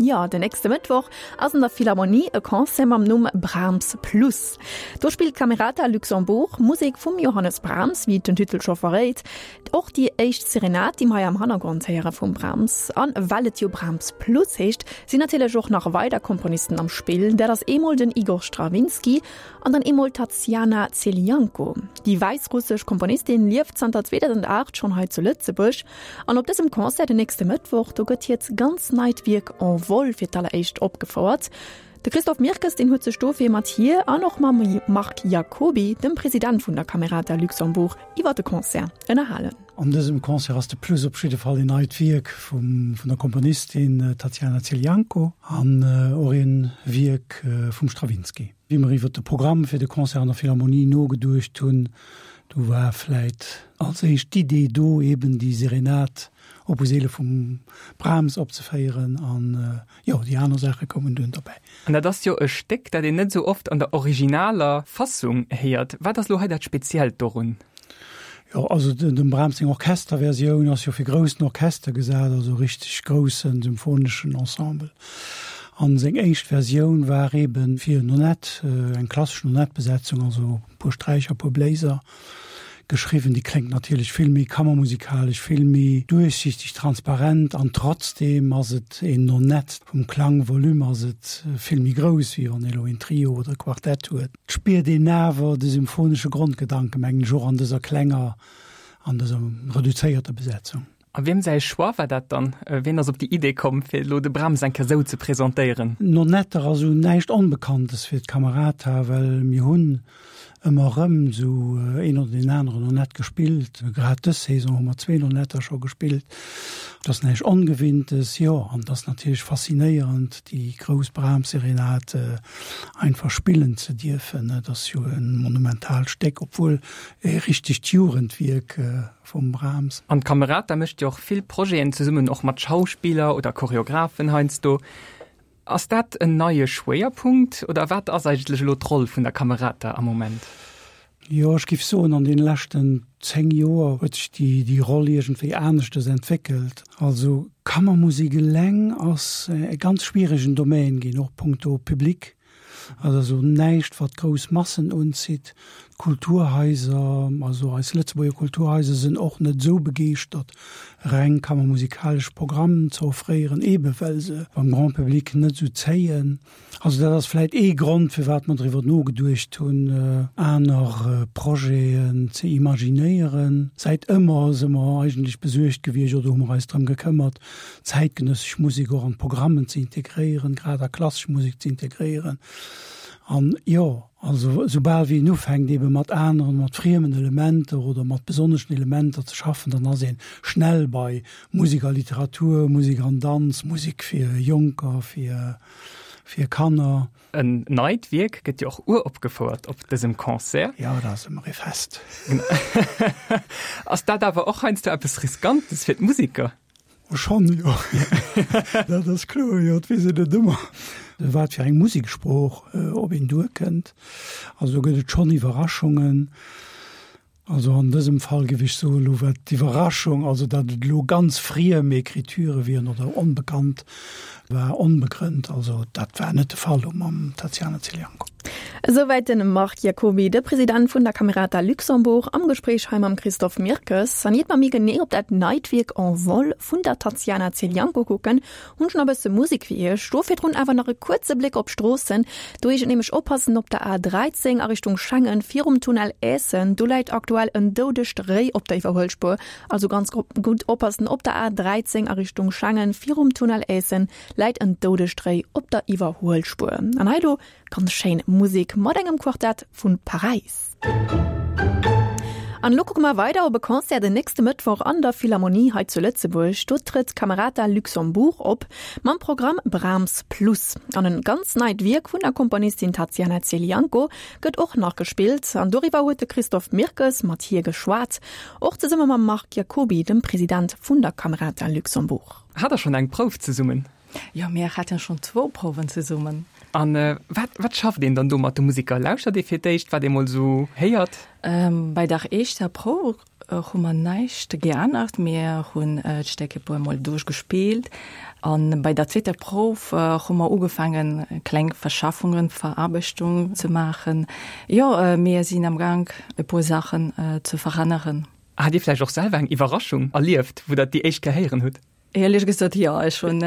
Jo, den nächste Mëttwoch ass an der Philharmonie e Concert mam Numm Brahms Plus. Do spillt d'Camerata Luxembourg Musek vum Johannes Brahms, wéi et den Titel scho verréit. Och déi éischt Serenade, déi mer hei am Hannergrond héiere vum Brahms. An well et jo Brahms Plus heescht, sinn natierlech och nach weider Komponisten am Spill. Dat ass eemol den Igor Strawinsky an dann eemol d'Tatsiana Zelianko. Déi wäissrussesch Komponistin lieft zanter 2008 schonn hei zu Lëtzebuerg. An op dësem Concert den nächste Mëttwoch, do gëtt hiert ganz neit Wierk En Vol fir d'alleréischt opgefouert. De Christophe Mirkes, deen huet sech dofir mat hir an och mam Marc Jacoby, dem President vun der Camerata Luxembourg, iwwer de Concert ënnerhalen. An dësem Concert ass de Plus op jidde Fall een neit Wierk vum vun der Komponistin Tatiana Zelianko an och een Wierk vum Strawinsky. Wéi mer iwwer de Programm fir de Concert an der Philharmonie nogeduecht hunn, do war vläit als éischt d'Idee do, eben déi Serenade Opus 11 vum Brahms opzeféieren an, jo, déi aner Saache koumen dunn derbäi. An dat ass jo e Stéck, dat een net esou oft an der originaler Fassung héiert. Wat ass elo hei dat Speziellt dorun? Jo, also dem Brahms seng Orchesterversioun ass jo fir groussen Orchester gesat, also richteg groussen symphoneschen Ensemble. An seng éischt Versioun war eben fir Nonett, eng klassesch Nonettbesetzung, also e puer Sträicher, e puer Bléiser geschriwwen. Déi kléngt natierlech vill méi kammermusikalesch, vill méi duerchsichteg, transparent an trotzdem ass et een Nonett. Vum Klangvolume ass et vill méi grouss, wéi wann ee elo een Trio oder e Quartett huet. Et spiert een awer de symphonesche Grondgedanken, mengen ech, och an dëser klenger, an dëser reduzéierter Besetzung. A wiem säi Choix war dat dann? Wien ass op déi Idee komm, fir elo de Brahms eng Kéier esou ze presentéieren? Nonetter ass esou näischt Onbekanntes fir d'Camerata, well mir hunn ëmmer erëm esou een oder deen aneren Nonett gespillt. Grad dës Saison hu mer zwee Nonetter scho gespillt. Et ass näischt Ongewinntes, jo, an et ass natierlech faszinéierend, déi grouss Brahms-Serenade einfach spillen ze dierfen. Et ass jo e monumentaalt Stéck, obwuel e richtegt Jugendwierk vum Brahms. An d'Camerata mécht jo och vill Projeten zesummen, och mat Schauspiller oder Choreographen heiansdo. Ass dat en neie Schwéierpunkt oder wat ass eigentlech elo d'Roll vun der Camerata am Moment? Jo, ech géif soen, an deene leschten 10 Joer huet sech déi, déi Roll iergendwéi aneschtes entwéckelt. Also Kammermusek eleng ass e ganz schwieregen Domaine ginn, och punkto Public. Et ass also näischt, wat grouss Massen unzitt. D'Kulturhaiser, also eis Lëtzebuerger Kulturhaiser sinn och net esou begeeschtert, reng kammermusikalesch Programmen ze offréieren, eebe well se beim Grand public net esou zéien. Also dat ass vläit ee Grond, firwat mer driwwer nogeduecht hunn, aner Projeten ze imaginéieren. Säit ëmmer si mer eigentlech besuergt gewiescht oder hu mer eis drëm gekëmmert, zäitgenëssesch Musek och an d'Programmen ze integréieren, grad a klassesch Musek ze integréieren. An jo, also soubal wéi een ufänkt eebe mat aneren, mat friemen Elementer oder mat besonneschen Elementer ze schaffen, dann ass ee schnell bei Musek a Literatur, Musek an Danz, Musek fir Jonker, fir, fir Kanner. En neit Wierk gëtt jo och uropgefouert op dësem Concert. Jo, dat ass ëmmer ee Fest. Ass dat awer och heiansdo eppes Riskantes fir d'Museker? Oh, schonn, jo. Dat ass kloer, jo. Et weess een net ëmmer, wat fir eng Museksprooch op een duerkënnt. Also do gëtt et schonn Iwwerraschungen. Also an dësem Fall géif ech soen, elo wat d'Iwwerraschung, also datt et elo ganz friem Écriturë wieren oder onbekannt, war onbegrënnt. Also dat war net de Fall elo mam Tatiana Zelianko. Esouwäit de Marc Jacoby, de President vun der Camerata Luxembourg, am Gespréich hei mam Christophe Mirkes. An iert mer méi genee op dat neit Wierk En vol vun der Tatiana Zelianko kucken, Hunn schon e bësse Musik fir iech. Do virdrun awer nach e kuerze Bléck op d'Stroossen. Do heescht et nämlech oppassen op der A13 a Richtung Schengen virum Tunnel Aessen. Do läit aktuell en doudegt Réi op der Iwwerhuelspuer. Also ganz gutt oppassen op der A13 a Richtung Schengen virum Tunnel Aessen läit en doudegt Réi op der Iwwerhuelspuer. An hei elo Ganz schéin Musek mat engem Quartett vun Paräis. An elo kucke mer weider op e Concert den nächste Mëttwoch an der Philharmonie hei zu Lëtzebuerg. Do trëtt Camerata Luxembourg op mam Programm Brahms Plus. An en ganz neit Wierk vun der Komponistin Tatiana Zelianko gëtt och nach gespillt. An doriwwer huet de Christophe Mirkes mat hir geschwat, och zesumme mam Marc Jacoby, dem President vun der Camerata Luxembourg. Hat der schonn eng Prouf zesummen? Jo, mir haten schonn zwou Prouwen zesummen. An wat, wat schafft een dann do mat de Musiker? Lauschtert ee fir d'éischt, wat ee mol esou héiert? Bei der éischter Prouf. hu mer näischt geännert. Mir hunn d'Stéck e puer Mol duerchgespillt an bei der zweeter Prouf hu mer ugefaangen, kleng Verschaffungen, Veraarbechtung ze maachen. Jo, mir sinn am Gank, e puer Saachen ze veränneren. Hat Dir vläicht och selwer eng Iwwerraschung erlieft, wou Der et déi éischt Kéier héieren hutt? Ehrlech gesot jo, ech hunn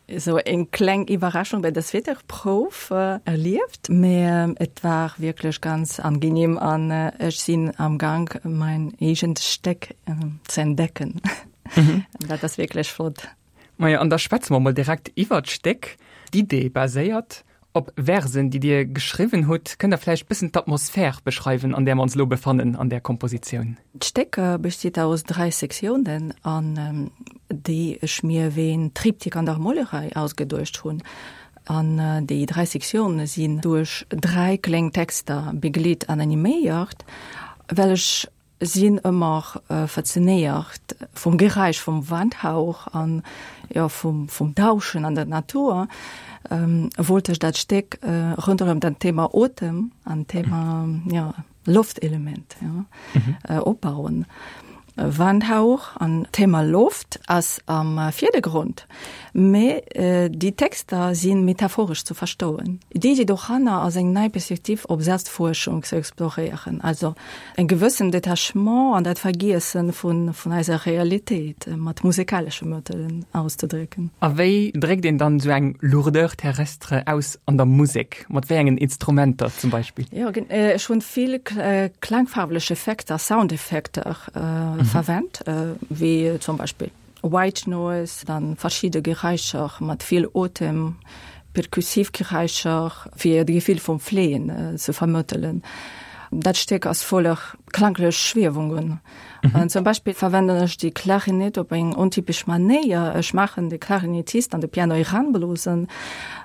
esou eng kleng Iwwerraschung bei der zweeter Prouf erlieft, mee et war wierklech ganz angenehm an ech sinn am Gang mein eegent Stéck ze entdecken. Dat ass wierklech flott. Majo, an da schwätze mer mol direkt iwwert d'Stéck. D'Idee baséiert Op Versen, déi Dir geschriwwen hutt. Kënnt Der vläicht bëssen d'Atmosphär beschreiwen, an där mer ons elo befannen an där Kompositioun? D'Stéck besteet aus 3 Sektiounen, an déi ech mir wéi en Triptyque an der Molerei ausgeduecht hunn. An déi 3 Sektioune sinn duerch 3 kleng Texter begleet an animéiert, well ech Sinn ëmmer faszinéiert vum Geräisch vum Wandhauch an jo vum vum Dauschen an der Natur. Wollt ech dat Stéck ronderëm dat Thema Otem an Thema jo Loftelement jo opbauen. Wandhauch an Thema Loft ass am Virdergrond, mee déi Texter si metaphoresch ze verstoen. D'Iddi doranner ass eng nei Perspektiv op Selbstfuerschung ze exploréieren, also En gewëssen Detachement an dat Vergiessen vun vun eiser Realitéit mat musekalesche Mëttelen auszedrécken. A wéi dréckt een dann esou eng Lourdeur terrestre aus an der Musek? Mat wéi engen Instrumenter zum Beispill? Jo, ech hunn vill klangfarwlech Effekter, Soundeffekter verwennt, wéi zum Beispill White Noise, dann verschidde Geräischer mat vill Otem, perkussiv Geräischer, fir de Gefill vum Fléien ze vermëttelen. Dat Stéck ass voller klanglech Schwiewungen. Mhm. Zum Beispill verwenden ech déi Klarinett op eng ontypesch Manéier. Ech maachen de Klarinettist an de Piano eranblosen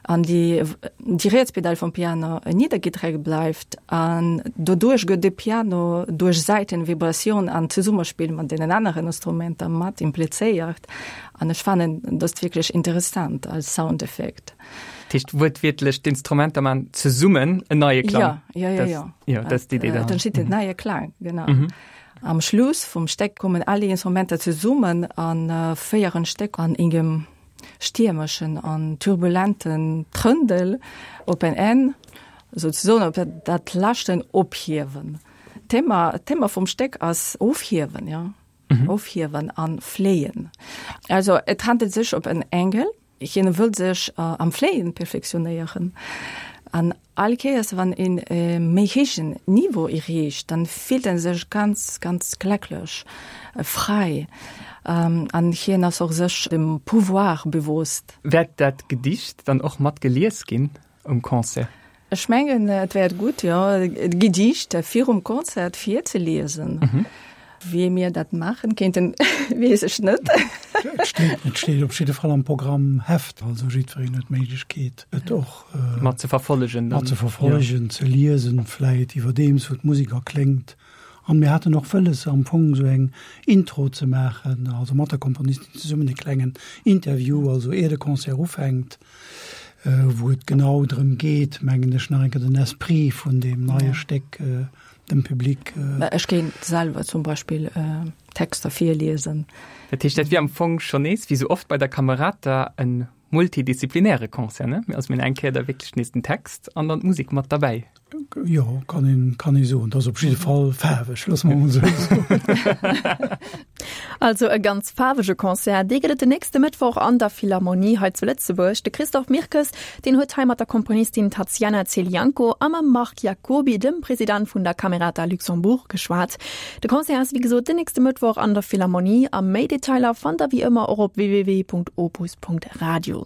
an déi déi riets Pedal vum Piano niddergedréckt bleift an doduerch gëtt de Piano duerch Säitenvibratioun an Zesummespill mat deenen aneren Instrumenter mat implizéiert an ech fannen dëst wierklech interessant als Soundeffekt. Dat heescht wuertwiertlech d'Instrumenter man zesummen en neie Klang? Ja, ja, ja, ja. Ja, dat ass d'Idee dahinter. Et entsteet en neie Klang, genau. Mhm. Am Schluss vum Stéck kommen all déi Instrumenter zesummen a féieren d'Stéck an engem stiermeschen an turbulenten Trëndel op en Enn, souzesoen op dat leschten Ophiewen. D'Thema, d'Thema vum Stéck ass Ofhiewen, jo, Ofhiewen an Fléien. Also et handelt sech op en Engel, hien wëll sech am Fléien perfektionéieren an All Kéiers wann een e méi héijen Niveau erreecht, dann fillt en sech ganz, ganz glecklech, fräi an hien ass och sech dem Pouvoir bewosst. Wäert dat Gedicht dann och mat gelies ginn um Concert? Ech mengen et wäert gutt, jo, d'Gedicht virum Concert virzeliesen. Wéi mir dat maachen kéinten, weess ech net. Et steet, et steet op jidde Fall am Programmheft, also jiddwereen huet d'Méiglechkeet, et och mat ze verfollegen, mat ze verfollegen, ze liesen, vläit iwwerdeems wou d'Musek erkléngt. An mir haten och wëlles, am Fong esou eng Intro ze maachen, also mat der Komponistin zesummen e klengen Interview, also ier de Concert ufänkt, wou et genau drëm geet, mengen ech, nach eng Kéier den Esprit vun deem neie Stéck dem Public. Ech géint selwer zum Beispill Texter virliesen. Dat heescht, dat wier am Fong schonn nees, wéi sou oft bei der Camerata, e multidisziplinäre Concert, ne? Also mir hunn eng Kéier da wierklech nees den Text an dann d'Musek mat derbäi. Jo, kann een, kann ee soen. Dat ass op jidde Fall faarweg, loosse mer emol esou soen. Also e ganz faarwege Concert, dee gëtt et den nächste Mëttwoch an der Philharmonie hei zu Lëtzebuerg. De Christophe Mirkes, deen huet hei mat der Komponistin Tatsiana Zelianko a mam Marc Jacoby, dem President vun der Camerata Luxembourg, geschwat. De Concert ass wéi gesot den nächste Mëttwoch an der Philharmonie a méi Detailer fannt der wéi ëmmer och op www.opus.radio.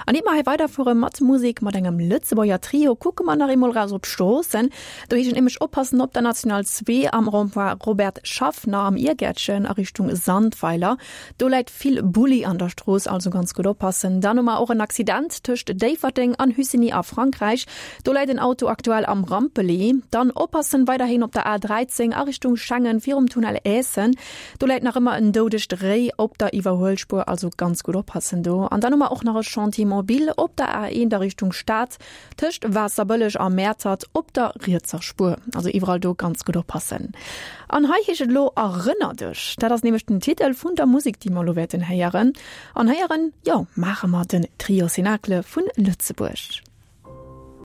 An ier mer hei weiderfuere mat Musek mat engem Lëtzebuerger Trio, kucke mer nach eemol raus op d'Stroossen. Do heescht et nämlech oppassen op der National 2 am Rond-point Robert Schaffner am Iergäertchen a Richtung Sandweiler. Sandweiler. Do läit vill Bulli an der Strooss, also ganz gutt oppassen. Dann hu mer och en Accident tëscht Déifferdeng an Hussigny a Frankräich. Do läit en Auto aktuell am Rampeli. Dann oppassen weiderhin op der A13 a Richtung Schengen virum Tunnel Aessen. Do läit nach ëmmer en doudegt Réi op der Iwwerhuelspuer, also ganz gutt oppassen do. An dann hu mer och nach e Chantier mobile op der A1 a Richtung Stad tëscht Waasserbëlleg a Mäertert op der rietser Spuer. Also iwwerall do ganz gutt oppassen. An hei heescht et elo Erënner dech. Dat ass nämlech den Titel vun der Musek, déi mer elo wäerten héieren. An héieren, jo, maache mer den Trio Cénacle vun Lëtzebuerg.